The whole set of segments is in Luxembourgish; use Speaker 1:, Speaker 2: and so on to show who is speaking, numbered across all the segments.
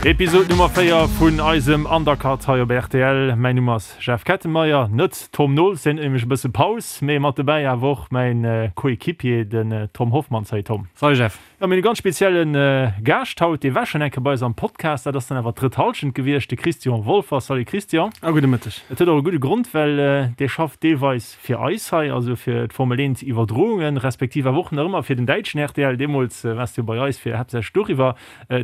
Speaker 1: Episod Nummer 4 vun eisem Undercut hei op rtl. Mäin Numm ass Jeff Kettenmeyer, net Tom Nols, deen huet nämlech e bësse Paus, mee mat dobäi awer och mäin Coéquipier, den Tom Hoffmann. Salut Tom.
Speaker 2: Salut Jeff.
Speaker 1: Jo, mir hunn e ganz spezielle Gaascht haut, dee war schonn eng Kéier bei eis am Podcast, dat ass dann awer d'drëtt Hallschent gewiescht, de Christian Wolfer. Salut Christian.
Speaker 2: A gudde Mëtteg.
Speaker 1: Et huet och e gudde Grond, well dee schafft deelweis fir eis hei, also fir d'Formel 1 Iwwerdroungen, respektiv awer och nach ëmmer fir den däitschen rtl. Deemools waars du jo bei eis fir haaptsächlech doriwwer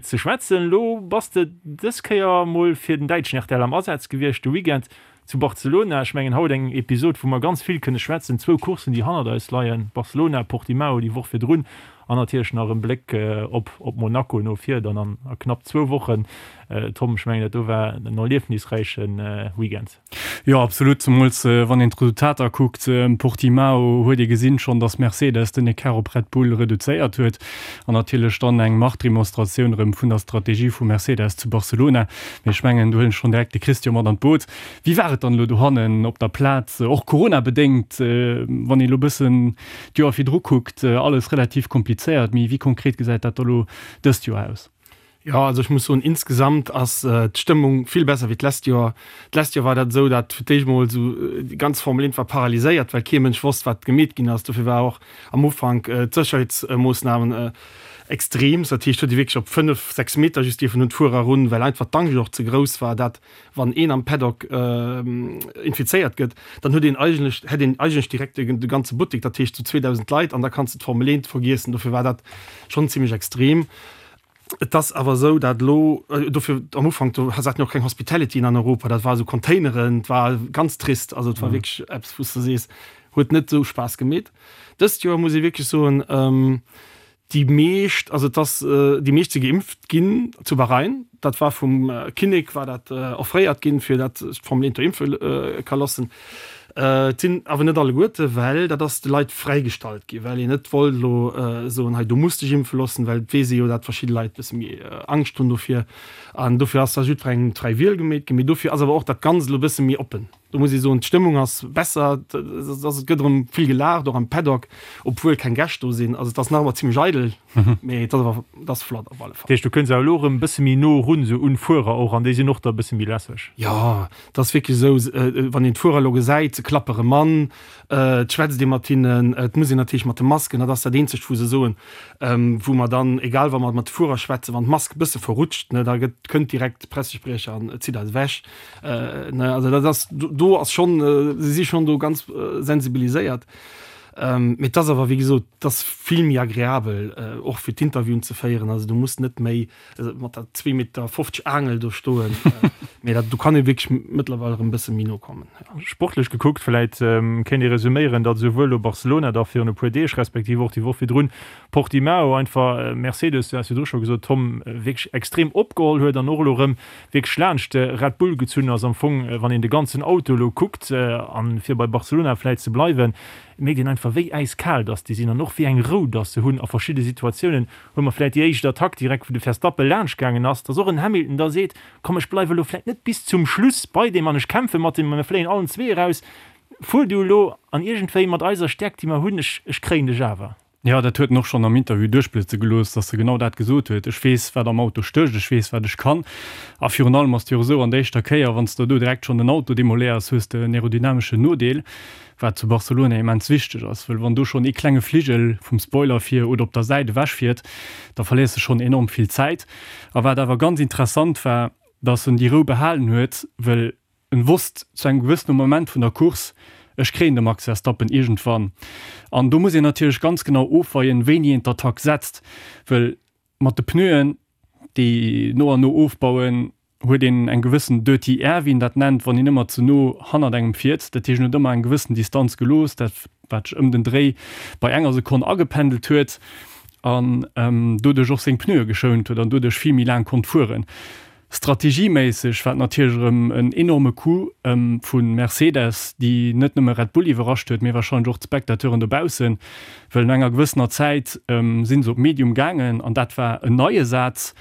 Speaker 1: ze schwätzen. Elo bass de dës Kéier mol fir den däitschen rtl am Asaz gewiescht de Weekend zu Barcelona. Ech mengen haut eng Episod wou mer ganz vill kënne schwätzen, zwou Courssen déi hannert eis leien, Barcelona, Portimao déi Woch virdrun an natierlech nach en Bléck op op Monaco no vir dann an a knapp zwou Wochen. Tom, ech mengen dat do war en erliefnisräiche Weekend.
Speaker 2: Jo absolut, zemools wann een d'Resultater kuckt. Portimao huet ee gesinn schonn, datt Mercedes den Ecart op Red Bull reduzéiert huet an natierlech dann eng Machtdemonstratioun erëm vun der Strategie vu Mercedes zu Barcelona. Mee ech mengen, do huelen ech schonn direkt de Christian mat an d'Boot. Wéi war et dann elo dohannen op der Plaz, och Corona-bedéngt, wann een elo e bëssen d'Joer virdru kuckt, alles relativ komplizéiert, mee wéi konkret gesäit dat da elo dëst Joer aus?
Speaker 3: Jo, also ech muss soen, insgesamt ass d'Stëmmung vill besser wéi d'lescht Joer. D'lescht Joer war dat esou, dat fir d'éischt mol esou déi ganz Formel 1 war paralyséiert, well kee Mënsch wosst, wat gemeet ginn ass. Dofir war och am Ufank d'Sécherheetsmoossnamen extrem. Dat heescht, huet ee wierklech op 5, 6 Meter just dierfen un d'Fuerer erun, well einfach d'Angscht och ze grouss war, dat wann een am Paddock infizéiert gëtt, dann huet een eigentlech, hätt een eigentlech direkt de ganze Buttek, dat heescht sou 2.000 Leit, an da kanns de d'Formel 1 vergiessen. Dofir war dat schonn zimmlech extrem. Et ass awer esou, dat elo, dofir am Ufank, do haten jo och keng Hospitalityen an Europa, dat war esou Containeren, et war ganz trist, also et war wierklech eppes, wou s de sees, huet net esou Spaass gemeet. Dëst Joer muss ee wierklech soen, déi meescht, also et ass, déi meescht si geimpft ginn zu Bahrain, dat war vum Kinnek war dat offréiert ginn, fir dat sech d'Formel 1 do impfe ka loossen. Et sinn awer net alleguerte, well dat ass de Leit fräigestallt ginn, well een net wollt elo soen, hei du muss dech impfe loossen, well et weess ee jo, dat verschidde Leit e bësse méi Angscht hunn dofir. An dofir ass da jiddwerengem d'fräi Wiel gemeet ginn. Mee dofir ass awer och dat Ganzt elo e bësse méi oppen. Do muss ee soen, d'Stëmmung ass besser, et gëtt erëm vill gelaacht, och am Paddock, obwuel keng Gäscht do sinn. Also et ass nach ëmmer zimmlech eidel, mee et ass awer, et ass flott op alle
Speaker 1: Fall. Dat heescht, du kënns awer elo erëm e bësse méi no erun, esou un d'Fuerer och, an déi sinn och da e bësse méi lässeg?
Speaker 3: Jo, et ass wierklech esou, wann een d'Fuerer elo gesäit, se klappe rëm an, et schwätzt ee mat hinnen, et muss een natierlech mat de Masken, dat ass dat eenzegt, wou se soen, wou mer dann, egal wa mer mat de Fuerer schwätzen, wann d'Mask e bësse verrutscht, ne, da gëtt, kënnt direkt de Pressespriecher an zitt eis ewech. Ne, also dat ass, do ass schonn, se si schonn do ganz sensibiliséiert. Mee et ass awer, wéi gesot, et ass vill méi agreabel, och fir d'Interviewen ze féieren. Also du muss net méi mat der zwee Meter 50 Aangel do stoen. Mee dat, do kann ee wierklech mëttlerweil erëm e bësse méi no kommen,
Speaker 1: jo. Sportlech gekuckt, vläit kéint ee resuméieren, datt esouwuel elo Barcelona da virun e puer Deeg, respektiv och déi Woch virdrun Portimao einfach Mercedes, du has virdru scho gesot, Tom, wierklech extrem opgeholl huet an och elo erëm wierklech laanscht de Red Bull gezunn ass. Am Fong, wann een de ganzen Auto elo kuckt, an fir bei Barcelona vläit ze bleiwen, mierkt een einfach wéi äiskal dass déi sinn an och wéi eng Rou dass se hunn a verschidde Situatiounen. Hu mer vläit déi éischt Attack direkt wou de Verstappen laanscht gaangen ass, dass och en Hamilton da seet, komm ech bleiwe elo vläit net bis zum Schluss bei deem an ech kämpfe mat deem a mir fléien allen zwee eraus, fuer du elo an iergendwéi mat eiser Stäerkt déi mer hunn, ech ech kréien dech awer.
Speaker 2: Jo, dat huet en och schonn am Interview duerchblëtze gelooss, dass e genau dat gesot huet, Ech weess, wat am Auto stécht, ech weess, wat ech kann. A virun allem ass et jo och esou, an der éischter Kéier, wann s de do direkt schonn den Auto demoléiers, hues de en aerodynameschen Nodeel, wat zu Barcelona immens wichteg ass, wëll wann do schonn ee klenge Fligel vum Spoiler vir oder op der Säit ewechfiert, da verléiers de schonn enorm vill Zäit. A wat awer ganz interessant war, dass en déi Rou behalen huet, wëll En wosst zu engem gewëssene Moment vun der Course, ech kréien de Max Verstappen iergendwann. An do muss een natierlech ganz genau ofweien, wéini een d'Attack setzt, wëll mat de Pneuen, déi no an no ofbauen, huet een eng gewëssen dirty air, wéi een dat nennt, wann een ëmmer ze no hannert engem fiert. Dat heescht, en huet ëmmer eng gewëssen Distanz gelooss, dat wat sech ëm den Dréi bei enger Sekonn agependelt huet an doduerch och seng Pneue geschount huet an doduerch vill méi laang konnt fueren. Strategieméisseg war et natierlech erëm en enorme Coup vu Mercedes, déi net nëmme Red Bull iwwerrascht huet, mee warscheinlech och d'Spectateuren dobaussen, well no enger gewëssener Zäit si se op Medium gaangen an dat war en neie Saz,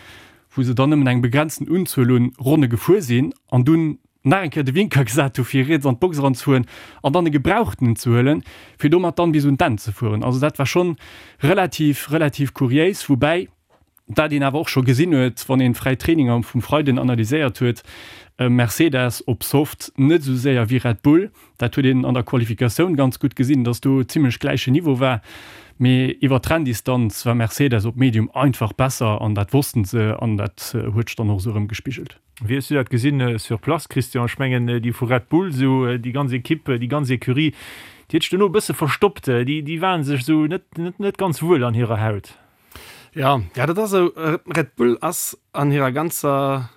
Speaker 2: wou se dann nëmmen eng begrenzten Unzuel un Ronne gefuer sinn an dunn nach eng Kéier de Winker gesat hu fir riets an d'Box eranzefueren an dann e gebrauchtenen ze huelen, fir domat dann bis un d'Enn ze fueren. Also dat war schonn relativ, relativ kuriéis, woubäi. Wat een awer och scho gesinn huet, wann een d'fräi Traininger vum Freiden analyséiert huet, Mercedes op Soft net esou séier wéi Red Bull. Dat huet een an der Qualifikatioun ganz gutt gesinn, dass do zimmlech gläichen Niveau war. Mee iwwer d'Renndistanz war Mercedes op Medium einfach besser an dat wossten se an dat huet sech dann och esou erëm gespigelt.
Speaker 1: Wéi hues du dat gesinn sur place, Christian? Ech mengen déi vu Red Bull, esou déi ganz Equipe, déi ganz Ecurie, déi huet sech dono e bësse verstoppt. Déi, déi waren sech esou net, net, net ganz wuel an hirer Haut.
Speaker 3: Ja, ja dat ass esou. Red Bull ass an hirer ganzer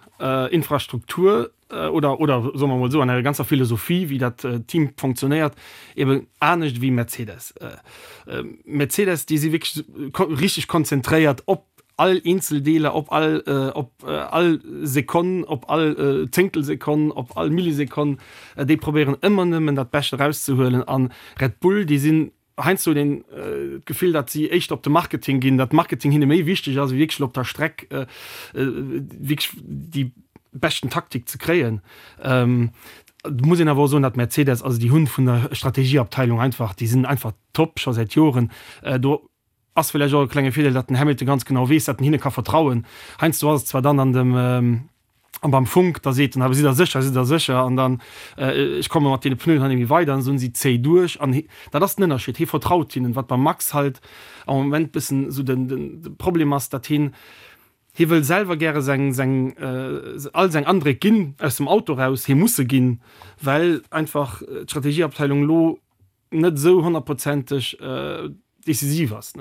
Speaker 3: Infrastruktur oder, oder soe mer emol esou, an hirer ganzer Philosophie, wéi dat Team fonctionnéiert, eben anescht wéi Mercedes. Mercedes, déi si wierklech richteg konzentréiert op all eenzel Deeler, op all, op all Sekonn, op all Zéngtelsekonn, op all Millisekonn. Déi probéieren ëmmer nëmmen dat Bescht erauszehuelen. A Red Bull, déi sinn heiansdo huet een d'Gefill, datt si éischter op de Marketing ginn, datt Marketing hinne méi wichteg ass, wéi wierklech op der Streck wierklech déi beschten Taktik ze kréien. Et muss een awer och soen, datt Mercedes, also déi hunn vun der Strategieabteilung einfach, déi sinn einfach top scho säit Joren do. Ass villäicht och e klenge Virdeel, datt den Hamilton ganz genau weess, datt en hinne ka vertrauen. Heiansdo ass et zwar dann an dem an beim Funk, da seet en, awer sidd der sécher, sidd der sécher? An dann, ech komme mat deene Pneuen hei net méi weider, an esou si zéi duerch. An dat ass den Ënnerscheed, hie vertraut hinnen. Wat beim Max halt am Moment bëssen esou den de Problem ass, datt hien, hie wëll selwer gäre seng seng all seng Andréck ginn aus dem Auto raus, hie muss se ginn, well einfach d'Strategieabteilung elo net esou honnertprozenteg decisiv ass.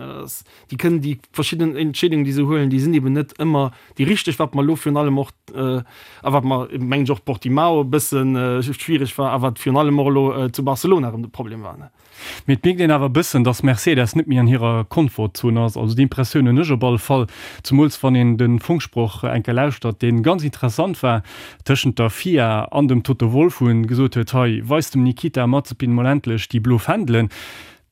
Speaker 3: Déi kënnen déi verschidden Entscheedungen, déi se huelen, déi sinn eben net ëmmer déi richteg, wat mer elo virun allem och, a wat mer, mengen ech, och Portimao e bësse schwiereg war a wat virun allem och elo zu Barcelona erëm de Problem war.
Speaker 2: Mee et mierkt een awer e bëssen, datt Mercedes net méi an hirer Komfortzon ass. Also déi Impressioun hunn ech op alle Fall, zemools wann een de Funksproch eng Kéier lauschtert, dee ganz interessant war, tëschent der FIA an dem Toto Wolff, wou en gesot huet, hei, weist dem Nikita Mazepin mol endlech déi blo Fändelen.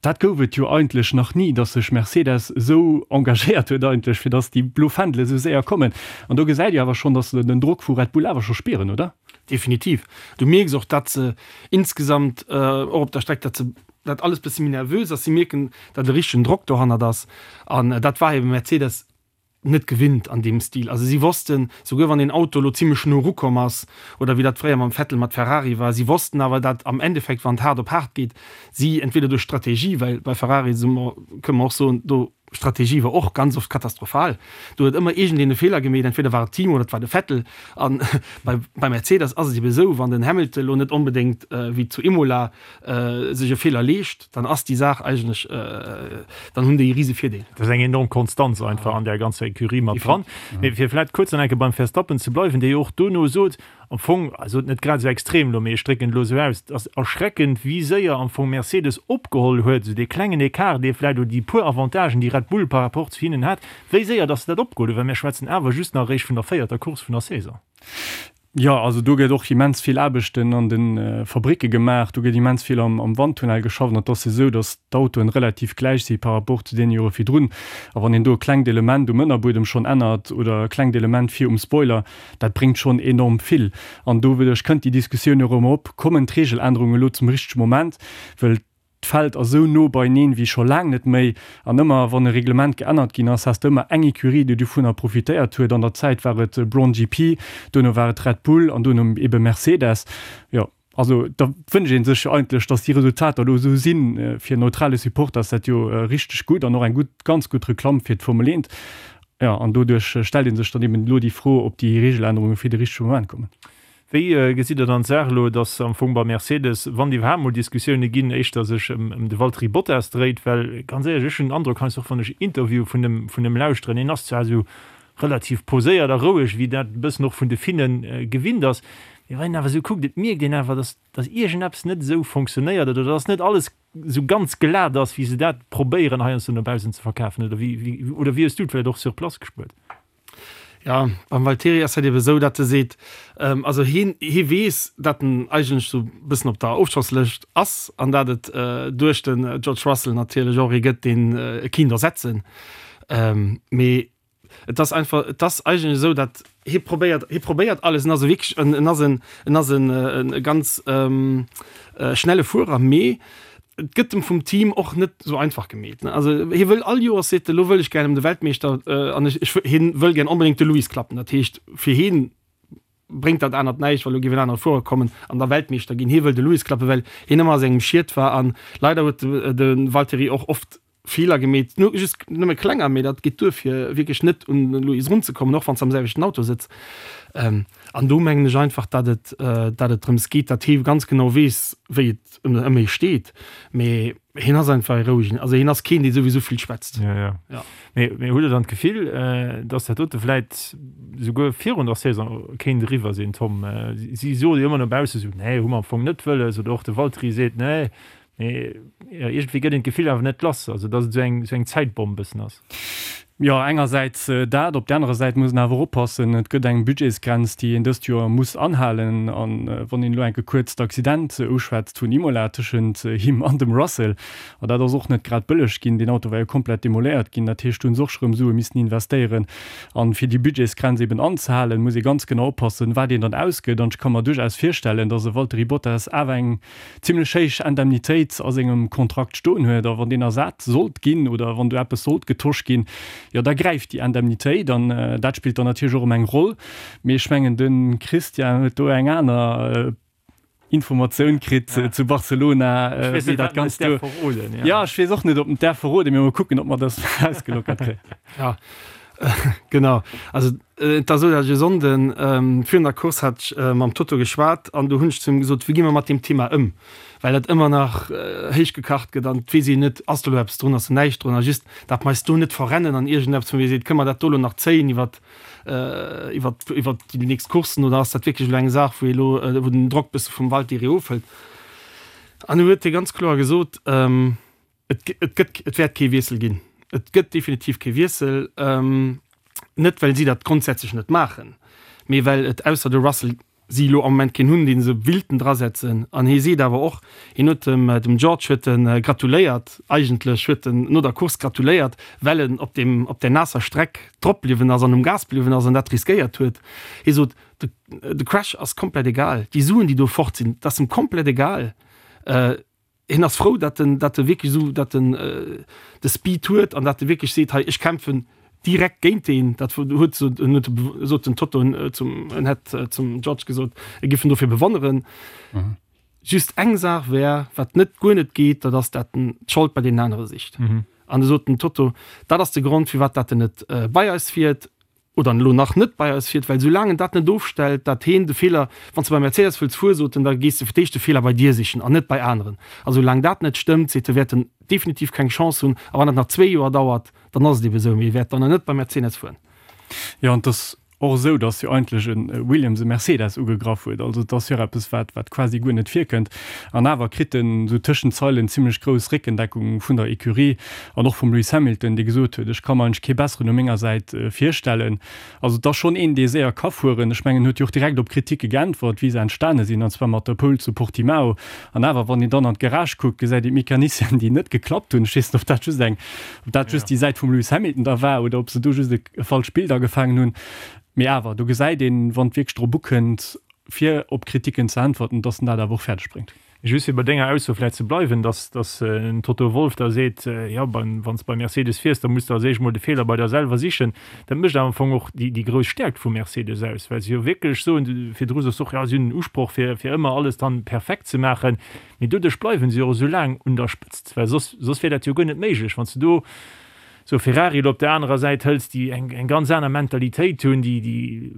Speaker 2: Dat gouf et jo eigentlech nach ni, datt sech Mercedes esou engagéiert huet eigentlech, fir datt déi blo Fändele esou séier kommen. An do gesäit ee awer schonn, datt se den Drock vu Red Bull awer scho spieren, oder?
Speaker 3: Definitiv. Du mierks och, datt se insgesamt och op der Streck, datt se, datt alles bësse méi nervös ass. Si mierken, datt e richtegen Drock dohannert ass. An dat war ebe Mercedes net gewinnt an deem Stil. Also si wossten, souguer wann een Auto elo zimlech no erukomm ass, oder wéi dat fréier mam Vettel mat Ferrari war, si wossten awer, dat am Endeffekt, wann et haart op haart geet, si entweder duerch Strategie, well bei Ferrari si mer, kënne mer och soen, do Strategie war och ganz oft katastrophal, do huet ëmmer iergendeen e Feeler gemeet, entweder war et d'Team oder et war de Vettel. A bei bei Mercedes ass et ebe esou, wann den Hamilton elo net onbedéngt wéi zu Imola sech e Feeler leescht, dann ass déi Saach eigentlech, dann hunn déi e rise Virdeel.
Speaker 1: Dat ass eng enorm Konstanz einfach an där ganzer Ecurie mat dran. Mee fir vläicht kuerz nach eng Kéier beim Verstappen ze bleiwen, dee jo och dono sot, am Fong, also net grad esou extrem elo, mee ech drécken et elo esou aus, et ass erschreckend, wéi séier am Fong Mercedes opgeholl huet, esou dee klengen Ecart, dee vläicht, oder déi puer Avantagen, déi Red Bull par rapport zu hinnen hat, wéi séier datt se dat opgeholl hunn, well mir schwätzen awer just nach eréischt vun der véierter Course vun der Saison.
Speaker 2: Jo, also do gëtt och immens vill Aarbechten an de Fabricke gemaach, do gëtt immens vill am Wandtunnel geschafft an et ass jo esou, datt d'Autoen relativ gläich si par rapport zu deene Jore virdrun. A wann een do e klengt Element um Ënnerbuedem schonn ännert oder e klengt Element vir um Spoiler, dat bréngt schonn enorm vill. An doduerch kënnt déi Diskussioun jo erëm op, Kommen d'Regelännerungen elo zum richtege Moment? Well D'Feld ass esou no beineen wéi scho laang net méi. An ëmmer wann e Reglement geännert ginn ass, has de ëmmer eng Ecurie, déi dovunner profitéiert huet. An der Zäit war et Brawn GP, duerno war et Red Bull an duerno ebe Mercedes. Jo, also da wënscht ee sech jo eigentlech, datt déi Resultater elo esou sinn. Fir en neutrale Supporter ass dat jo richteg gutt an och eng gutt, ganz gutt Reklamm fir d'Formel 1. Jo, an doduerch stellt ee sech dann eben elo déi Fro, ob déi Regelännerunge fir de richtege Moment kommen.
Speaker 1: Wéi gesitt Der dann d'Saach elo, datt am Fong bei Mercedes, wann iwwerhaapt mol Diskussioune ginn, éischter sech ëm de Valtteri Bottas dréit? Well ganz éierlech, ech hunn den Androck heiansdo och wann ech Interviewe vun em vun em lauschteren, hien ass zwar esou relativ poséiert a roueg, wéi dat e bëssen och vun de Finne gewinnt ass, mee wann een awer esou kuckt, et mierkt een awer, datt datt iergendeppes net esou fonctionnéiert oder datt net alles esou ganz glat ass, wéi se dat probéieren heiansdo no baussen ze verkafen. Oder wéi wéi oder wéi hues du et vläicht och sur place gespuert?
Speaker 3: Ja, beim Valtteri ass dat ebe sou, datt e seet, also hien, hie weess, datt en eigentlech sou e bëssen op der Ofschosslëscht ass an datt et duerch de George Russell natierlech och ee gëtt, deen e kinnt ersetzen. Mee et ass einfach, et ass eigentlech esou, datt hie probéiert, hie probéiert alles, en ass e wierklech en, en ass en, en ass en e ganz schnelle Fuerer, mee. Et gëtt em vum Team och net esou einfach gemeet. Also hie wëll all Joers seet e, lo wëll ech gär ëm de Weltmeeschter an ech, ech, hien wëll gär onbedéngt de Lewis klappen. Dat heescht fir hien bréngt dat anert näischt, well lo géif en anere Fuerer kommen an da Weltmeeschter ginn. Hie wëll de Lewis klappen, well hien ëmmer a sengem Schiet war an leider huet de Valtteri och oft Feeler gemeet, just nëmme klenger, mee dat geet duer fir wierklech net un de Lewis erunzekommen, och wann s de am selwechten Auto sëtz. An do mengen ech einfach, datt et, datt et drëms geet, datt hie ganz genau weess, wéi et ëm hie steet. Mee hien ass einfach e rouegen, also hien ass keen, dee souwisou vill schwätzt.
Speaker 1: Jo, jo. Ja. Mee, mee hutt Der dann d'Gefill, datt dat dote vläit souguer virun der Saison kéint eriwwer sinn, Tom? Si soe jo ëmmer no bausse sou, nee, hu mer am Fong net wëlles, oder och de Valtteri seet, nee, Mee jo, iergendwéi gëtt een d'Gefill awer net lass, also datt et esou eng, esou eng Zäitbomm bëssen ass.
Speaker 2: Jo, engersäits dat, op där anerer Säit muss een awer och oppassen, et gëtt eng Budgetsgrenz, déi een dëst Joer muss anhalen. A wann een elo enke kuerz d'Accident uschwätzt vun Imola tëschent him an dem Russell, a dat ass och net grad bëlleg ginn, deen Auto war jo komplett demoléiert ginn, dat heescht do hunn se och scho rëm Sue missen investéieren. An fir déi Budgetsgrenz eben anzehalen, muss ee ganz genau oppassen, wat een dann ausgëtt. An ech ka mer duerchaus virstellen, datt e Valtteri Bottas awer eng zimlech héich Indemnitéit a sengem Kontrakt stoen huet, a wann deen ersat sollt ginn oder wann do eppes sollt getosch ginn, jo da gräift déi Indemnitéit an dat spillt dann natierlech och erëm eng Roll. Mee ech mengen de Christian huet do eng aner Informatioun kritt zu Barcelona, wéi dat Ganzt do. Jo, ech weess och net, ob en et däerf verroden, mee mol kucken, ob mer dat ausgelockert kréien.
Speaker 3: Jo, genau. Also Et ass esou, datt ech e Sonnden virun der Course hat ech mam Toto geschwat an do hunn ech zu him gesot, wéi gi mer mat deem Thema ëm, well dat ëmmer nach héich gekacht gëtt an et weess een net, ass do elo eppes drun, ass do näischt drun a just, datt mer eis do net verrennen an iergendeppes, wou ee seet, kënne mer dat do elo nach zéien iwwer iwwer iwwer déi nächst Courssen oder ass dat wierklech elo eng Saach, wou ee elo wou den Drock bësse vum Valtteri ofhëlt. An du huet hie ganz kloer gesot, Et et gëtt, et wäert kee Wiessel ginn. Et gëtt definitiv kee Wiessel. Net well si dat grondsätzlech net maachen, mee well et ausser de Russell si elo am Moment keen hunn, dee se willten drasetzen. An hie seet awer och, hien huet dem dem George huet e gratuléiert, eigentlech huet en no der Course gratuléiert, well en op deem op där naasser Streck drop bliwwen ass an um Gas bliwwen ass an dat riskéiert huet. Hie sot, de de Crash ass komplett egal, déi Suen déi do fort sinn, dat ass em komplett egal. Hien ass frou, datt en, datt e wierklech esou, datt en de Speed huet an datt e wierklech seet, hei ech kämpfen direkt géint deen. Dat huet sot en huet sot den Toto zum en hätt zum George gesot, e giff en dofir bewonneren. Just eng Saach wär, wat net guer net geet, dat ass, dat en d'Schold bei deenen anere sicht. An du sot den Toto, dat ass de Grond, firwat dat en net bei eis fiert. oder elo nach net bei eis fiert, well soulaang en dat net ofstellt, dat heen de Feeler, wann s de bei Mercedes wëlls fueren, sot en, da gees de fir d'éischt de Feeler bei dir sichen an net bei aneren. A soulaang dat net stëmmt, seet e, wäert en definitiv keng Chance hunn. A wann dat nach zwee Joer dauert, dann ass et ebe sou, mee e wäert dann net bei Mercedes fueren.
Speaker 2: Jo, an et ass och esou, datt jo eigentlech e Williams e Mercedes ugegraff huet. Also et ass jo och eppes, wat, wat quasi guer net virkënnt. An awer kritt en esou tëschent Zeilen zimlech grouss Réckendeckung vun der Ecurie. An och vum Lewis Hamilton, dee gesot huet, ech ka mer eigentlech kee besseren u menger Säit virstellen. Also et ass schonn een, dee séier ka fueren. Ech mengen, en huet jo och direkt op Kriticke geäntwert, wéi se entstane sinn, an zwar mat der Pole zu Portimao. An awer, wann een dann an d'Garage kuckt, gesäit een d'Mecanicien, déi net geklappt hunn. Ech weess net, ob dat just eng, ob dat just déi Säit vum Lewis Hamilton da war oder ob se do just e falscht Bild agefaangen hunn. Mee awer, do gesäit een, wann et wierklech drop ukënnt, fir op Kriticken ze äntwerten, dass en dat awer och fäerdeg bréngt.
Speaker 1: Just fir bei denger Ausso vläicht ze bleiwen, dass dass en Toto Wolff da seet, jo beim wann s de bei Mercedes fiers, da muss de als éischt mol de Feeler bei der selwer sichen. Dat mécht awer am Fong och déi déi grouss Stäerkt vu Mercedes aus, well se jo wierklech soen, virdru sos de och, jo si hunn den Usproch fir fir ëmmer alles dann perfekt ze maachen, mee doduerch bleiwen se jo och esou laang un der Spëtzt, well soss soss wier dat jo guer net méiglech, wann s de do sou Ferrari elo op der anerer Säit hëls, déi eng eng ganz aner Mentalitéit hunn, déi déi e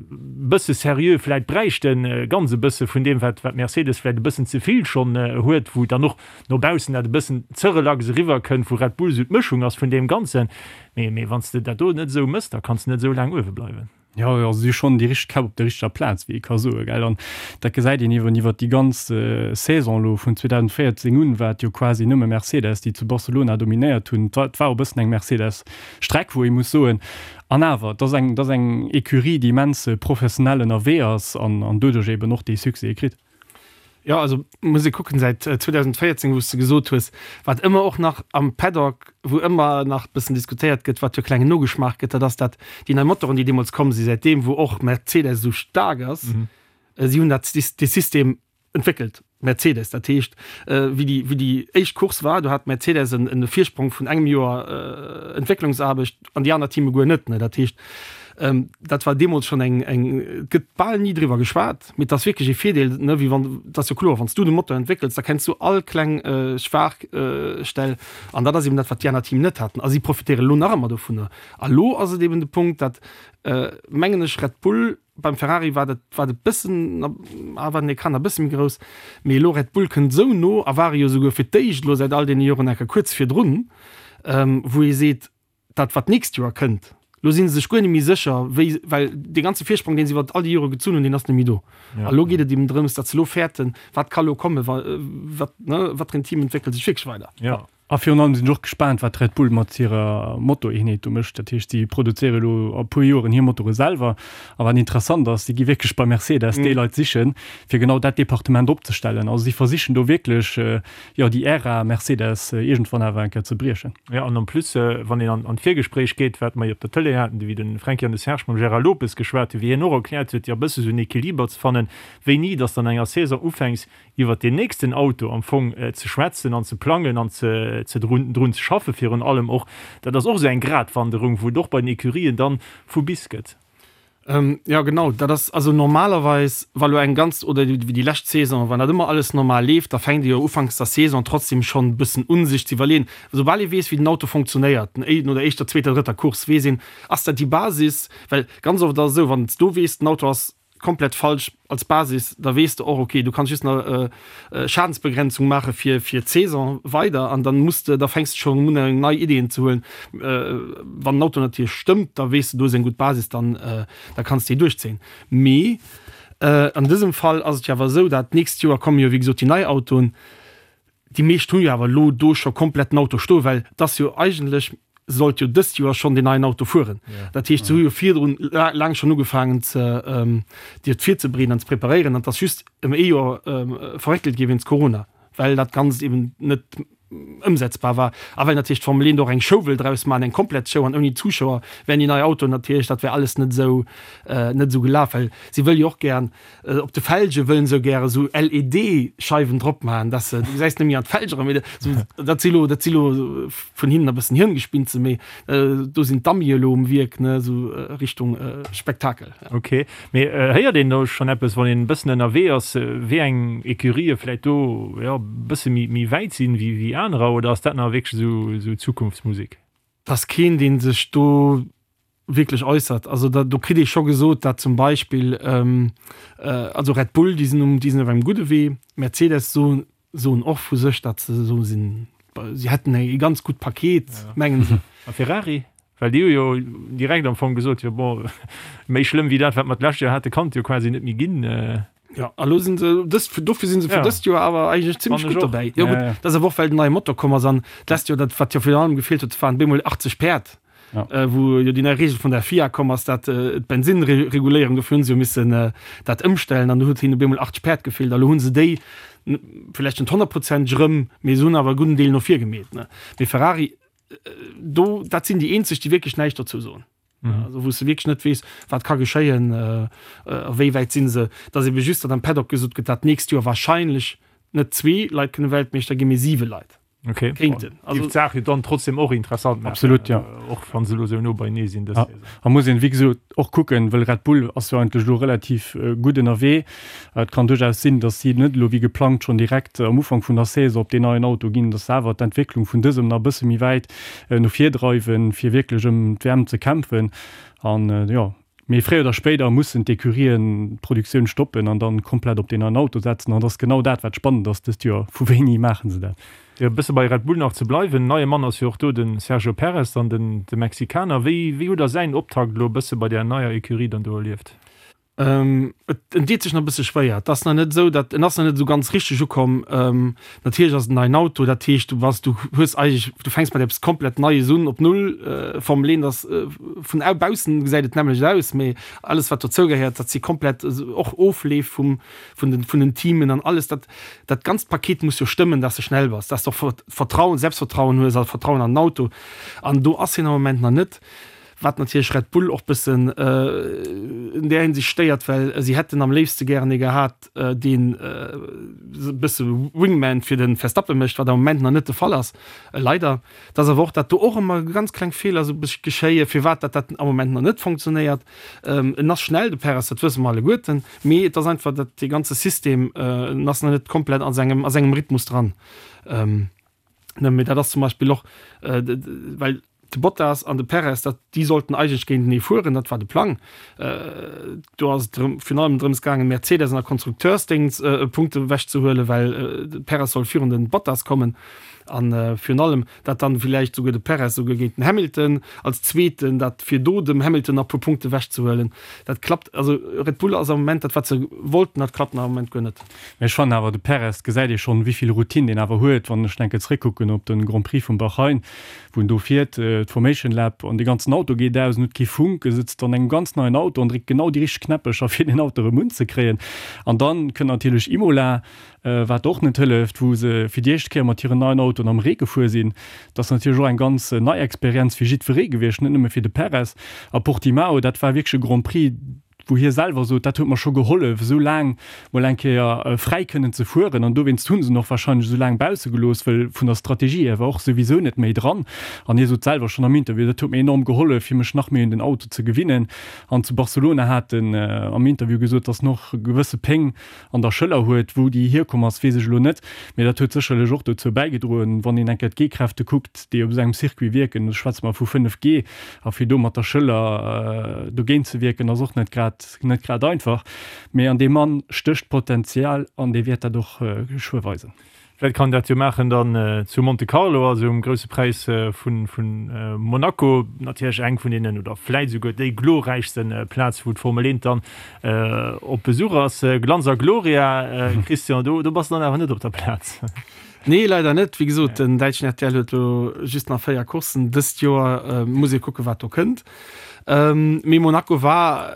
Speaker 1: bësse seriö vläit bräichten, ganz e bësse vun deem wat wat Mercedes vläit e bëssen ze vill schonn huet, wou dann och no baussen dat e bëssen ze relax eriwwer kënnt, wou Red Bull sou d'Mëschung ass vun deem Ganzen. Mee mee wann s de dat do net esou mëss, da kanns de net esou laang uewe bleiwen.
Speaker 2: Jo, also si hu schonn déi richteg Käpp op der richteger Plaz, wéi ee ka soen, gell. An dat gesäit een iwwer iwwer déi ganz Saison elo vun 2014 un, war et jo quasi nëmme Mercedes, déi zu Barcelona dominéiert hunn. Et war, et war och e bëssen eng Mercedes-Streck, wou ee muss soen. An awer, et ass eng, et ass eng Ecurie, déi immens professionell ënnerwee ass an, an doduerch eeben och dee Succès kritt.
Speaker 3: Jo, also muss ee kucken, säit 2014, wou s de gesot hues, wat ëmmer och nach am Paddock, wou ëmmer nach bëssen diskutéiert gëtt, wat jo klengen Nogeschmaach gëtt, dat ass dat déi nei Motoren, déi deemools komm sinn, säitdeem wou och Mercedes esou staark ass, si hunn dat dee System entwéckelt. Mercedes. Dat heescht, wéi déi, wéi déi éischt Course war, do hat Mercedes en, en Virsprong vun engem Joer Entwécklungsaarbecht an déi aner Teame guer net. Dat heescht, dat war deemools schonn eng, eng, et gëtt bal ni driwwer geschwat, mee et ass wierklech ee Virdeel, ne, wéi wann, et ass jo kloer, wann s du de Motor entwéckels, da kenns du all kleng Schwaachstell an dat ass eben dat, wat déi aner Team net haten a si profitéieren elo nach ëmmer dovunner. A lo ass et eben de Punkt, dat, mengen ech, Red Bull, Beim Ferrari war dat war et bëssen ah war den Ecran e bësse méi grouss, mee elo Red Bull kënnt esou no a ware jo esouguer fir d'éischt elo säit all deene Joren enker kuerz virdrun, wou ee seet, dat wat d'nächst Joer kënnt, elo si se sech guer net méi sécher wéi, well dee ganze Virsprong deen se iwwer all déi Jore gezunn hunn, deen ass net méi do. A elo geet et eben drëms, datt se elo fäerten, wat ka elo kommen, wa wat ne wat fir en Team entwéckelt sech wierklech weider.
Speaker 2: A virun allem sinn ech och gespaant, wat Red Bull mat hirer Motoreenheet do mécht. Dat heescht, si produzéiere elo a puer Joren hir Motore selwer. A wat interessant ass, si gi wierklech bei Mercedes déi Leit sichen, fir genau dat Departement opzestellen. Also si versichen do wierklech, jo, déi Ära Mercedes iergendwann awer eng Kéier ze briechen.
Speaker 1: Jo, an en plus, wann een an d'Virgespréich geet, wat mer jo op der Tëlee haten, wéi de Franky an de Serge mam Gérard Lopez geschwat hunn, wéi hien och erkläert huet, jo, e bësse sou en Equiliber ze fannen, wéini dass de an enger Saison ufänks, iwwert deen nächsten Auto am Fong ze schwätzen an ze plangen an ze ze drun drun ze schaffe virun allem och. Dat ass och esou eng Gratwanderung, wou et och bei den Ecurien dann vu bis gëtt.
Speaker 3: Jo genau, dat ass also normalerweis, wa lo eng ganz oder wéi déi lescht Saison, wann dat ëmmer alles normal leeft, da fänkt ee jo ufanks der Saison trotzdem schonn e bëssen un sech ze iwwerleeën, soubal ee weess wéi den Auto funktionéiert, no der éischter, zweeter, drëtter Course weess een, ass dat déi Basis, well ganz oft ass et esou, wann s du weess den Auto ass komplett falsch als Basis, da weess de och, okay, du kanns just nach Schadensbegrenzung maache fir fir d'Saison weider an dann muss de, da fänks de schonn un eng nei Ideen ze huelen. Wann den Auto natierlech stëmmt, da weess de, do ass eng gutt Basis, dann da kanns de déi duerchzéien. Mee an dësem Fall ass et jo awer esou, dat d'nächst Joer komme jo wéi gesot déi nei Autoen. Déi meescht hu jo awer elo do scho komplett den Auto stoen, well et ass jo eigentlech, sollt jo dëst Joer schonn deen neien Auto fueren. Dat heescht, se hu jo virdrun laang schonn ugefaangen ze déi et virzebereeden an ze preparéieren an et ass just ëm ee Joer verréckelt gi wéinst Corona, well dat Ganzt eben net ëmsetzbar war a well natierlech d'Formel 1 och eng Show wëll draus maachen, eng komplett Show an ouni Zuschauer wären déi nei Autoen natierlech, dat wär alles net esou net esou gelaf, well si wëll jo och gären Op de Felge wëllen se gäre sou LED-Scheiwen drop maachen, dass se, du gesäis net méi an d'Felg eran, mee sou, dat si lo, dat si lo vun hinnen e bëssen Hirngespinste, mee do sinn d'Amie elo um Wierk, ne, sou Richtung Spektakel.
Speaker 1: Ok, mee héiert een do schonn eppes, wann een e bëssen ënnerwee ass, wéi eng Ecurië vläit do, jo, e bësse méi, méi wäit sinn wéi, wéi anerer, oder ass dat nach wierklech esou, esou Zukunftsmusek?
Speaker 3: 't ass keen, dee sech do wierklech äussert. Also da, do kritt ee scho gesot, dat zum Beispill, also Red Bull, déi sinn um, déi sinn op engem gudde Wee. Mercedes soen, soen och vu sech, datt se esou sinn, si hätten e ganz gutt Paket, mengen se.
Speaker 1: A Ferrari? Well déi hu jo direkt am Fong gesot, jo bon, méi schlëmm wéi dat, wat mer d'lescht Joer hate kann et jo quasi net méi ginn.
Speaker 3: Jo, a lo sinn se dëst, dofir sinn se fir dëst Joer awer eigentlech zimmlech gutt dobäi. Jo gutt, dat ass awer och well den neie Motor komm ass an d'lescht Joer, dat wat jo virun allem gefeelt huet, waren bemol 80 Päerd, wou jo déi nei Reegel vun der FIA komm ass, dat d'Bensinnreguléierung, dofir hunn se jo missen dat ëmstellen an do huet hinnen bemol 80 Päerd gefeelt a lo hu se déi vläicht net honnertprozenteg erëm, mee se hunn awer e gudden Deel no vir gemeet. Mee Ferrari, do, dat sinn déi eenzeg, déi wierklech näischt dozou soen. Mhm. Also wou s de wierklech net weess, wat ka geschéien, äh, a wéi wäit sinn se. Dass ebe just, datt am Paddock gesot gëtt, dat d'nächst Joer wahrscheinlech net zwee Leit kënne Weltmeeschter ginn, mee siwe Leit.
Speaker 1: Okay.
Speaker 3: Kéinten.
Speaker 1: Also Géif d'Saach jo dann trotzdem och interessant
Speaker 2: maachen. Absolut, ja.
Speaker 1: Och wann se elo sou no beienee sinn dës
Speaker 2: Ja. Saison. A muss een, wéi gesot, och kucken, wëll Red Bull ass jo eigentlech elo relativ gutt ënnerwee. Et kann duerchaus sinn, datt si net elo wéi geplangt schonn direkt am Ufank vun der Saison op deen neien Auto ginn, datt se awer d'Entwécklung vun dësem nach e bësse méi wäit no vir dreiwen, fir wierklech ëm d'WM ze kämpfen. An jo, mee fréier oder spéider mussen d'Ecurien d'Produktioun stoppen an dann komplett op deen neien Auto setzen. An et ass genau dat, wat spannend ass dëst Joer, Vu wéini maache se dat?
Speaker 1: Fir e bësse bei Red Bull nach ze bleiwen, neie Mann ass jo och do, de Sergio Perez, dann den de Mexikaner. Wéi wéi hutt Der säin Optakt elo e bësse bei där neier Ecurie dann do erlieft?
Speaker 3: Et en deet sech nach e bësse schwéier. Et ass nach net esou, datt en ass nach net esou ganz richteg ukomm. Natierlech ass et en neien Auto, dat heescht, du bass, du hues eigentlech, du fänks mat eppes komplett Neies un, op Null. Formel 1 ass, vun baussen gesäit et d'nämmlecht aus, mee alles wat dozou gehéiert, dat si komplett och Ofleef vum, vun den, vun den Teamen an alles dat, dat ganzt Paket muss jo stëmmen, datt s de schnell bass, datt s de och Vertrauen, Selbstvertrauen hues a Vertrauen an den Auto. An do ass hien am Moment nach net. Wat natierlech Red Bull och bëssen in där Hinsicht stéiert, well si hätten am léifste gären ee gehat, deen e bësse Wingman fir de Verstappen mécht, wat am Moment nach net de Fall ass, leider. Et ass awer och, datt do och ëmmer ganz kleng Feeler esou bëssche geschéien, firwat datt dat am Moment nach net fonctionnéiert. En ass schnell, de Perez, dat wësse mer alleguerten, mee et ass einfach, datt dee ganze System, en ass nach net komplett a sengem, a sengem Rhythmus dran. Ne, mee dat ass zum Beispill och, well de Bottas an de Perez, dat, déi sollten eigentlech géintenee fueren, dat war de Plang. Do ass et drëm, virun allem drëms gaangen, Mercedes an der Konstrukteursdéngs Punkte ewechzehuelen, well de Perez soll virun de Bottas kommen. An virun allem, dat dann villäicht souguer de Perez souguer géint den Hamilton als Zweeten, dat fir do dem Hamilton nach e puer Punkte ewechzehuelen. Dat klappt, also Red Bull ass am Moment dat, wat se wollten, dat klappt nach am Moment guer net.
Speaker 2: Mee ech fannen awer, de Perez, gesäit ee schonn, wéi vill Routine deen awer huet. Wann ech enke zréckkucken op de Grand Prix vum Bahrain, wou en do fiert, d'Formation Lap, an dee ganzen Auto geet aus, en huet kee Funk, e sëtzt an engem ganz neien Auto an dréckt genau déi richteg Knäppecher, fir deen Auto erëm unzekréien. An dann kënnt natierlech Imola, wat och net hëlleft, wou se fir déi éischt Kéier mat hiren neien Autoen am Ree gefuer sinn. Dat ass natierlech och eng ganz nei Experienz fir jiddweree gewiescht, net nëmme fir de Perez. A Portimao, dat war wierklech e Grand Prix, wou hie selwer sot, dat huet mer scho gehollef, esou laang mol eng Kéier fräi kënnen ze fueren. An dowéinst hu se en och wahrscheinlech esou laang bausse gelooss, well vun der Strategie hier war och souwisou net méi dran. An hie sot selwer schonn am Interview, dat huet mir enorm gehollef, fir mech nach méi un den Auto ze gewinnen. An zu Barcelona hat en am Interview gesot, datt en och gewësse Péng an der Schëller huet. Wou déi hierkomm ass, weess ech elo net, mee dat huet sécherlech och dozou bäigedroen, wann een eng Kéier d'G-Kräfte kuckt, déi op esou engem Circuit wierken, do schwätze mer vu 5 G, a fir do mat der Schëller dogéint ze wierken, ass och net grad, net grad einfach. Mee an deem Mann stécht Potenzial an dee wäert dat och geschwë weisen.
Speaker 1: Vläit kann dat jo maachen dann zu Monte Carlo, also um grousse Präis vu Monaco. Natierlech eng vun deenen, oder vläit esouguer déi glorräichste Plaz, wou d'Formel 1 dann op Besuch ass. Glanz a Gloria, Christian, do bass de dann awer net op der Plaz.
Speaker 3: Nee, leider net. Wéi gesot, den däitschen RTL huet elo just nach 4 Courssen dëst Joer. Muss ee kucken, wat do kënnt. Mee Monaco war,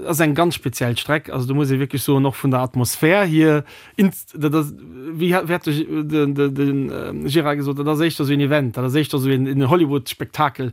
Speaker 3: ass eng ganz speziell Streck. Also do muss ee wierklech soen, och vun der Atmosphär hier, Dat ass, wéi hat de, de, de Gérard gesot, dat ass éischter esou een Event, dat ass éischter esou een, een Hollywood-Spektakel,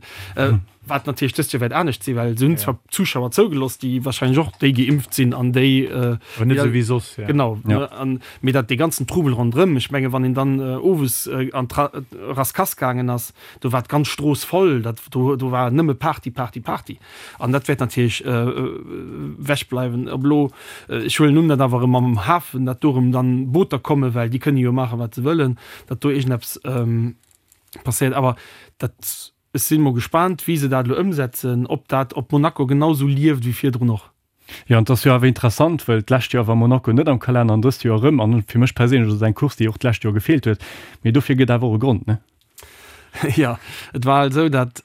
Speaker 3: wat natierlech dëst Joer wäert anescht sinn, well se hunn zwar Zuschauer zougelooss, déi wahrscheinlech och déi geimpft sinn an déi,
Speaker 1: Awer net esou wéi soss,
Speaker 3: ja. Genau, an, mee dat, dee ganzen Trubel ronderëm, ech menge wann een dann owes an d'Rascasse gaangen ass, do war d'ganz Strooss voll, dat, do, do war nëmme Party, Party, Party. An dat wäert natierlech ewechbleiwen. Ob elo, ech huelen un, datt awer erëm am Hafen, datt do erëm dann Booter kommen, well déi kënne jo maachen, wat se wëllen, datt do iergendeppes passéiert. Awer dat, ech si mol gespaant, wéi se dat elo ëmsetzen, ob dat op Monaco genau esou lieft wéi virdrun och.
Speaker 2: Jo, an et ass jo awer interessant, well d'lescht Joer war Monaco net am Kalenner an dëst Joer erëm. An fir mech perséinlech ass et eng Course, déi och d'lescht Joer gefeelt huet. Mee dofir gëtt awer och e Grond, ne?
Speaker 3: Jo, et war halt esou, datt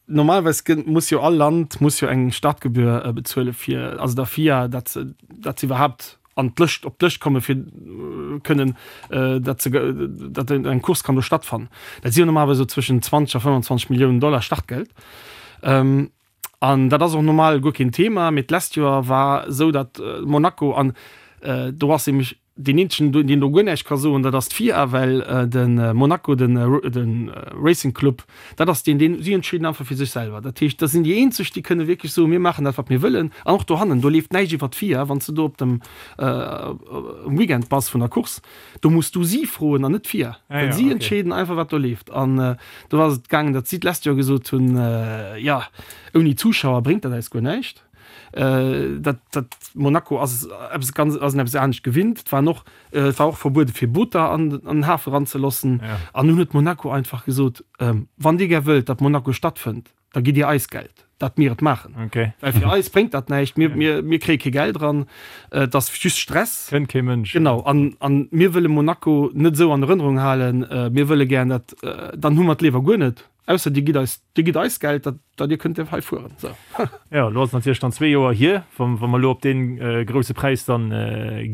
Speaker 3: normalerweis gëtt, muss jo all Land muss jo eng Startgebühr bezuele fir, also der FIA, datt se, datt se iwwerhaapt an d'Lëscht, op d'Lëscht komme fir kënnen, datt se, datt eng Course kann do stattfannen. Dat si jo normalerweis esou zwëschen 20 a 25 Milliounen Dollar Startgeld. An dat ass och normal guer keen Thema, mee d'lescht Joer war esou, datt Monaco, an do ass nämlech deen eenzegen, deen do guer näischt ka soen, dat ass d'FIA, well de Monaco, de Racing Club, dat ass deen, deen, si entscheeden einfach fir sech selwer. Dat heescht, dat sinn déi eenzeg, déi kënne wierklech soen, mir maachen dat, wat mir wëllen. An och dohannen, do leeft näischt iwwer d'FIA. Wann s de do op dem Weekend bass vun der Course, Do muss du si froen an net d'FIA, well si entscheeden einfach, wat do leeft. An do ass et gaangen, datt si d'lescht Joer gesot hunn, jo, ouni Zuschauer bréngt dat eis guer näischt. Dat, dat Monaco ass eppes ganz, ass en eppes anescht gewinnt. Et waren och, et war och verbuede fir Booter an den Hafe eranzeloossen. An dunn huet Monaco einfach gesot, wann dir gär wëllt, datt Monaco stattfënnt, da gitt Dir eis Geld, datt mir et maachen.
Speaker 1: Okay.
Speaker 3: Well fir eis bréngt dat näischt, mir, mir, mir kréie kee Geld eran, et ass just Stress.
Speaker 1: Kënnt kee Mënsch.
Speaker 3: Genau, an, an mir wëlle Monaco net esou an Erënnerung halen, mir wëlle gären dat, dann hu mer et léiwer guer net, ausser Dir gitt eis, Dir gitt eis Geld, datt, datt Dir kënnt hei fueren. Sou.
Speaker 1: Jo, elo ass et natierlech dann zwee Joer hier, wa, wa mer elo op dee grousse Präis dann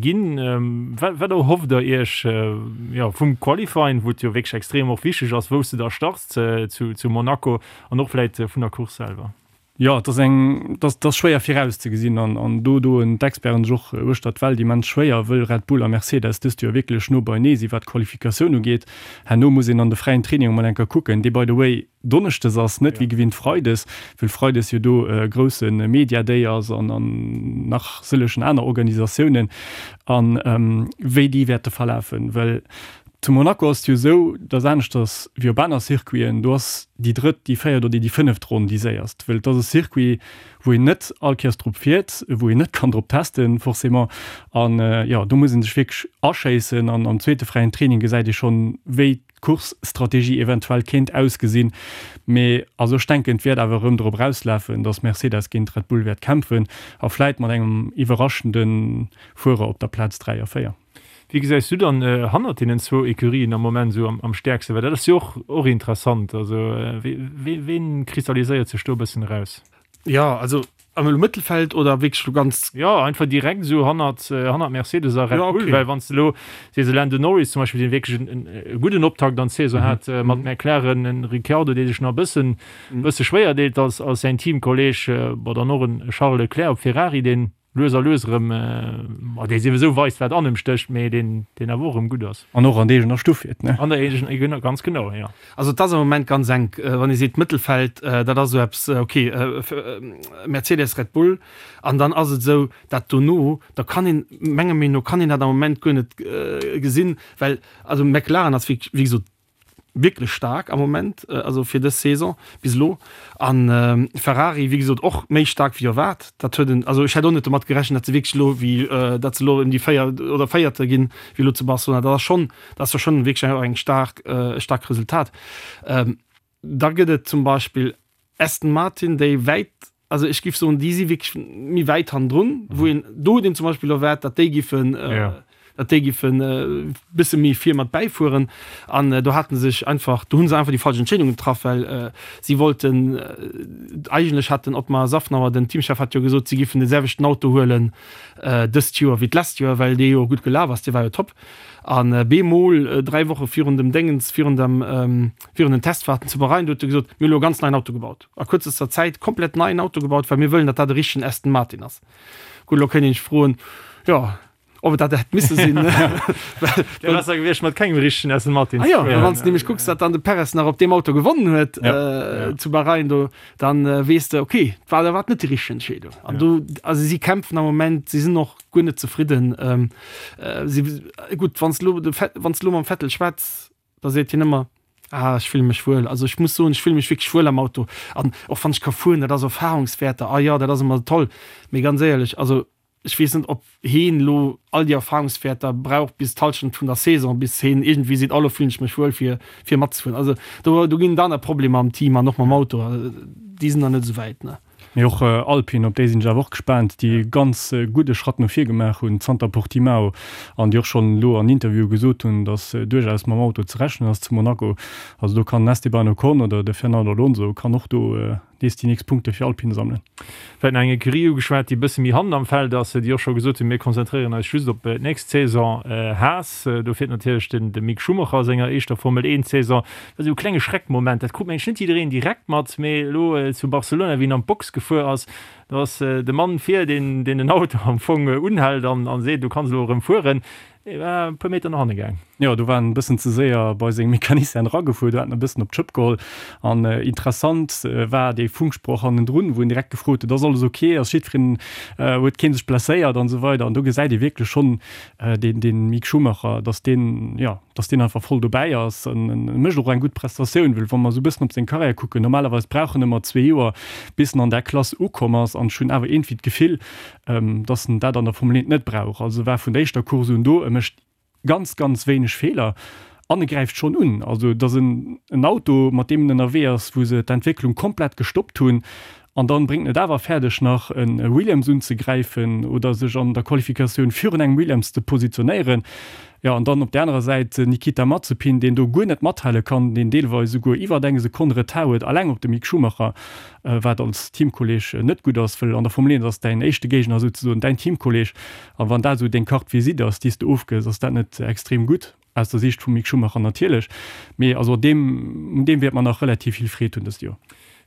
Speaker 1: ginn. Wat, wat erhofft Der Iech, jo, vum Qualifying, wou et jo wierklech extrem och wichteg ass, wou s de da starts zu, zu Monaco, An och vläit vun der Course selwer.
Speaker 2: Jo, et ass eng, et ass, et ass schwéier virauszegesinn an, an do doen d'Experten sech och uechter d'Welt immens schwéier, wëll Red Bull a Mercedes dëst Joer wierklech no beinee si wat d'Qualifikatioun ugeet. Herno muss een an de fräien Training emol eng Kéier kucken, dee by the way donneschdes ass, net wéi gewinnt freides, wëll freides jo do e grousse Media Day ass an, an nach sëllegen aner Organisatiounen, an wéi déi wäerte verlafen, well Zu Monaco ass et jo esou, dass aneschters wéi op aner Circuiten, do ass déi drëtt, déi véiert oder déi fënneft Ronn déi séierst, wëll et ass e Circuit, wou een net all Kéiers drop fiert, wou een net kann drop testen forcément. An jo, do muss ee sech wierklech aschéissen an am zweete fräien Training gesäit ee schonn, wéi d'Course-Strategie eventuell kéint ausgesinn. Mee also ech denken, et wäert awer erëm drop erauslafen, dass Mercedes géint Red Bull wäert kämpfen a vläit mat engem iwwerraschende Fuerer op der Plaz 3 a 4.
Speaker 1: Wie gesäis du dann hannert deenen zwou Ecurien am Moment esou am stäerksten? Well dat ass jo och och interessant. Also ween kristalliséiert sech do e bëssen eraus?
Speaker 3: Jo, also am elo Mëttelfeld oder wierklech elo ganz?
Speaker 1: Jo, einfach direkt esou hannert hannert Mercedes a Red Bull. Well wann s de elo sees, e Lando Norris zum Beispill, deen wierklech en e gudden Optakt an d'Saison hat mat McLaren, en Ricciardo, dee sech nach e bëssen bësse schwéier deet als als säin Teamkolleeg, bon dann och en Charles Leclerc op Ferrari, deen lues a lues erëm, ma dee souwisou weist, wat an em stécht, mee deen, deen awer och erëm gutt ass.
Speaker 2: An och an der eegener Stuff fiert, ne?
Speaker 1: An der eegener, ganz genau, jo.
Speaker 3: Also et ass am Moment ganz enk. Wann ee seet Mëttelfeld, dat ass esou eppes, ok, Mercedes, Red Bull, an dann ass et esou, dat dono, da kann een, menger Meenung no, kann een dat am Moment guer net gesinn, well also McLaren ass wéi gesot wierklech staark am Moment, also fir dës Saison bis elo. An Ferrari, wéi gesot, och méi staark wéi erwaart. Dat huet en, also ech hätt och net domat gerechent, datt se wierklech elo wéi, datt se elo ëm déi 4 oder Véierte ginn, wéi elo zu Barcelona. Dat ass schonn, dat ass jo schonn wierklech eng staark, e staarkt Resultat. Da gëtt et zum Beispill Aston Martin, déi wäit, also ech géif soen, déi si wierklech méi wäit hannendrun, wou een, do huet een zum Beispill erwaart, datt déi giffen, datt déi giffen e bësse méi vir mat bäifueren. An do hate se sech einfach, do hu se einfach déi falsch Entscheedung getraff, well si wollten, eigentlech hat den Otmar Szafnauer, den Teamchef, hat jo gesot, si giffen de selwechten Auto huelen dëst Joer wéi d'lescht Joer, well dee jo gutt gelaf ass, dee war jo top. An bemol 3 Woche virun dem Déngens, virun dem, virun den Testfahrten zu Bahrain, do huet e gesot, mir hu lo e ganz neien Auto gebaut, a kuerzester Zäit komplett neien Auto gebaut, well mir wëllen, datt dat e richtegen Aston Martin ass. Gutt, elo kéint een sech froen, jo, ob et dat hätt misse sinn.
Speaker 1: Wär besser gewiescht mat kengem richtegen Aston Martin
Speaker 3: ze fueren. Ah jo, well wann s de nämlech kucks, datt dann de Perez nach op deem Auto gewonnen huet zu Bahrain do, dann weess de, okay, war dat net déi richteg Entscheedung. An do, also si kämpfen am Moment, si sinn och guer net zefridden. Si, gutt, wann s de elo de, wann s de elo mam Vettel schwätz, da seet hien ëmmer, Ah, ech fille mech wuel. Also ech muss soen, ech fille mech wierklech wuel am Auto. An och wann ech ka fueren, dat ass Erfahrungswäerter, ah jo, dat ass ëmmer toll. Mee ganz éierlech, also ech weess net, ob heen elo all déi Erfahrungswäerter brauch bis d'Hallschent vun der Saison, bis heen iergendwéi seet, oh lo fillen ech mech wuel fir, fir matzefueren. Also do, do ginn et aner Problemer am Team an och mam Auto, déi sinn nach net esou wäit, ne.
Speaker 2: Mee och Alpine, op déi sinn ech awer och gespaant, déi e ganz gudde Schratt no vir gemaach hunn zanter Portimao an déi och schonn elo an Interviewe gesot hunn, datt duerchaus mam Auto ze rechnen ass zu Monaco. Also do kann den Esteban Ocon oder de Fernando Alonso kann och do nees déi nächst Punkte fir Alpine sammelen.
Speaker 1: Vläit nach eng Ecurie ugeschwat, déi e bësse méi hannen am Feld ass, déi och scho gesot hunn, mir konzentréieren eis just op d'nächst Saison, Haas. Do fiert natierlech den de Mick Schumacher a senger éischter Formel 1 Saison. Dat ass esou e klenge Schreckmoment, dat krut mengen ech net jiddereen direkt mat, mee elo zu Barcelona, wéi en an d'Box gefuer ass, do ass de Mann vir, deen deen den Auto am Fong unhält an an seet, du kanns elo erëm fueren, dee war e puer Meter no hanne gaang.
Speaker 2: Jo, do war en e bëssen ze séier bei seng Mecanicien eragefuer, do hat en e bëssen op d'Schëpp geholl. An interessant war dee Funksproch hannendrun, wou en direkt gefrot huet, ass alles ok, ass jiddwereen, huet kee sech blesséiert an esou weider. An do gesäit ee wierklech schonn, deen deen Mick Schumacher, dass deen, jo, dass deen einfach voll dobäi ass an e mécht och eng gutt Prestatioun, well wa mer esou e bëssen op seng Karriär kucken, normalerweis brauch en ëmmer zwee Joer bis en an där Klass ukomm ass an ech hunn awer iergendwéi d'Gefill, dass en dat an der Formel 1 net brauch. Also e war vun der éischter Course un do, e mécht ganz, ganz wéineg Feeler an e gräift schonn un. Also et ass en en Auto, mat deem en ënnerwee ass, wou se d'Entwécklung komplett gestoppt hunn An dann bréngt en et awer fäerdeg nach e Williams unzegräifen oder sech an der Qualifikatioun virun engem Williams ze positionéieren. Jo, an dann op där anerer Säit den Nikita Mazepin, deen do guer net mathale kann, deen deelweis esouguer iwwert eng Sekonn Retard huet, alleng op de Mick Schumacher, wat als Teamkolleeg net gutt ass, wëll an der Formel 1 ass däin éischte Géigner souzesoen däin Teamkolleeg. A wann dat esou deng Carte visite ass, déi s de ofgëss, ass dat net extrem gutt. Aus der Siicht vum Mick Schumacher natierlech, mee also deem, un deem wäert mer nach relativ vill Freed hunn dëst Joer.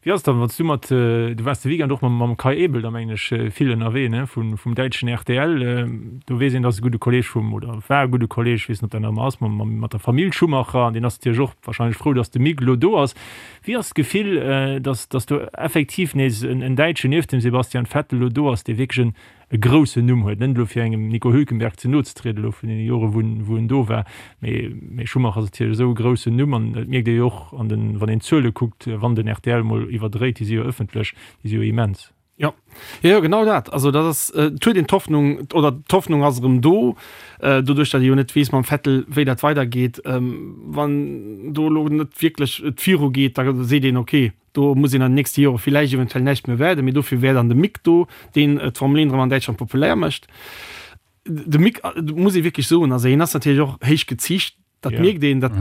Speaker 1: Wéi ass et dann, wann s du mat, du waars de Weekend och mam mam Kai Ebel da mengen ech vill ënnerwee, ne, vun vum däitschen rtl. Do weess een, dat ass e gudde Kolleeg vum, oder war e gudde Kolleeg, ech weess net, ob dat nach ëmmer ass, mam mam mat der Famill Schumacher an deen ass natierlech och wahrscheinlech frou, datt de Mick elo do ass. Wéi ass d'Gefill, datt datt do effektiv nees en en Däitschen nieft dem Sebastian Vettel elo do ass, dee wierklech en e groussen Numm huet, net elo fir engem Nico Hülkenberg ze no ze trieden elo vun deene Jore wou en wou en do war, mee mee Schumacher ass natierlech esou e groussen Numm an et mierkt ee jo och an den wann een d'Zuele kuckt, wann den rtl mol iwwerdréit, déi si jo ëffentlech, déi si jo immens.
Speaker 3: Jo, jo, jo, genau dat. Also dat ass, et huet een d'Hoffnung, oder d'Hoffnung ass erëm do, doduerch datt ee jo net weess mam Vettel wéi dat weidergeet. Wann do elo net wierklech et virugeet, da seet een, okay, Do muss een an den nächste Jore villäicht eventuell näischt méi erwaarden, mee dofir wär dann de Mick do, deen d'Formel 1 erëm an Däitschland populär mécht. De Mick, muss ee wierklech soen, also hien ass natierlech och héich geziicht, dat mierkt een, dat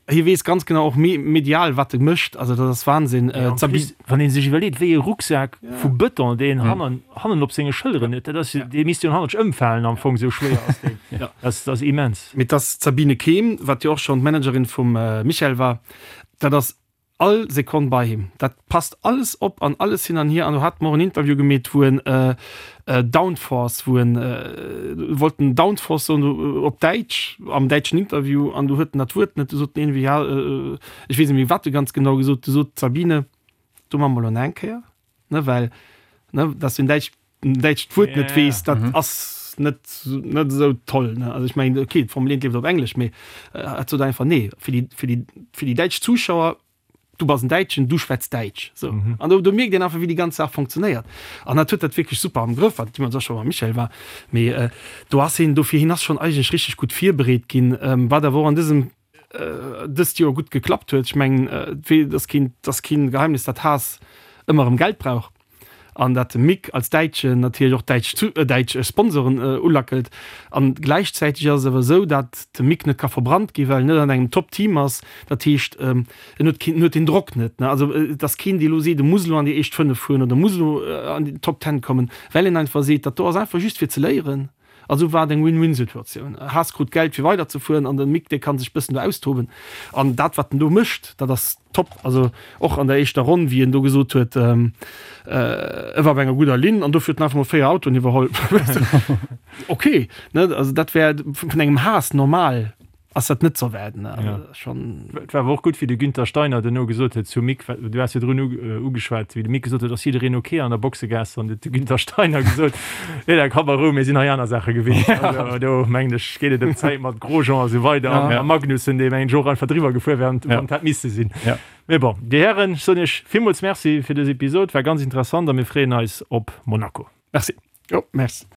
Speaker 3: hie weess ganz genau och medial, wat e mécht, also dat ass Wahnsinn.
Speaker 1: Wann ee sech iwwerleet, wéi e Rucksak vu Bëton deen hannen hannen op senge Schëlleren huet, dat ass jo, dee misst jo hannert ëmfalen am Fong, esou schwéier ass deen. Dat ass immens.
Speaker 3: Mee dass d'Sabine Kehm, wat jo och schonn d'Managerin vum Michael war, dat ass All Sekonn bei him. Dat passt alles op an alles hin an hier. An do hate mer och en Interview gemeet, wou en Downforce, wou en wollt en Downforce soen op Däitsch, am däitschen Interview, an du huet en dat Wuert net. Du sot en iergendwéi, ja, ech weess net méi, wat e ganz genau gesot. Du sot d'Sabine, do maache mer elo nach eng Kéier, ne, well, ne, dass du en Däitsch en däitscht Wuert net weess, dat ass net net esou toll, ne? Also ech mengen, okay, d'Formel 1 leeft op Englesch, mee et sot einfach, nee, fir déi, fir déi, fir déi däitsch Zuschauer, du bass en Däitschen, du schwätz Däitsch, sou. An do, do mierkt een einfach, wéi déi ganz Saach funktionéiert. An dat huet dat wierklech super am Grëff, wat deemools och scho mam Michael war. Mee do ass hien, dofir, hien ass schonn eigentlech richteg gutt virbereet ginn, wat awer och an dësem dëst Joer gutt geklappt huet. Ech mengen, et ass keen, et ass keen Geheimnis, datt Haas ëmmer erëm Geld brauch an datt de Mick als Däitschen natierlech och däitsch däitsch Sponsoren ulackelt. An gläichzäiteg ass et awer esou, datt de Mick net ka verbrannt ginn, well en net an engem Top-Team ass. Dat heescht, en huet keen, en huet deen Drock net, ne. Also et ass keen, dee elo seet, e muss elo an déi éischt 5 fueren oder muss elo an déi Top Ten kommen, well en einfach seet, dat do ass einfach just fir ze léieren. Also war et eng Win-Win-Situatioun. Haas krut Geld fir weider ze fueren an den Mick dee kann sech bëssen do austoben. An dat wat en do mécht, dat ass top. Also och an der éischter Ronn wéi en do gesot huet, e war op enger gudder Linn an dofir huet en einfach mol 4 Autoen iwwerholl. Ok, ne, also dat wär vun engem Haas normal. Ass dat net ze erwaarden?
Speaker 1: Ja. Schon. Et war awer och gutt, wéi de Günther Steiner duerno gesot huet zum Mick, du has virdrun ugeschwat, wéi de Mick gesot huet, ass jiddereen ok an der Boxegaass, an huet de Günther Steiner gesot, nee, da komm a Rou, mir sinn hei aner Saache gewinnt. Also do mengen ech, geet et ëm d'Zäit mat Grosjean a sou weider an a Magnussen, dee mengen ech och einfach driwwer gefuer wär, wann et hätt misse sinn. Mee bon, Dir Hären, ech soen Iech villmools Merci fir dës Episod, war ganz interessant a mir freeën eis op Monaco.
Speaker 3: Merci. Jo, merci.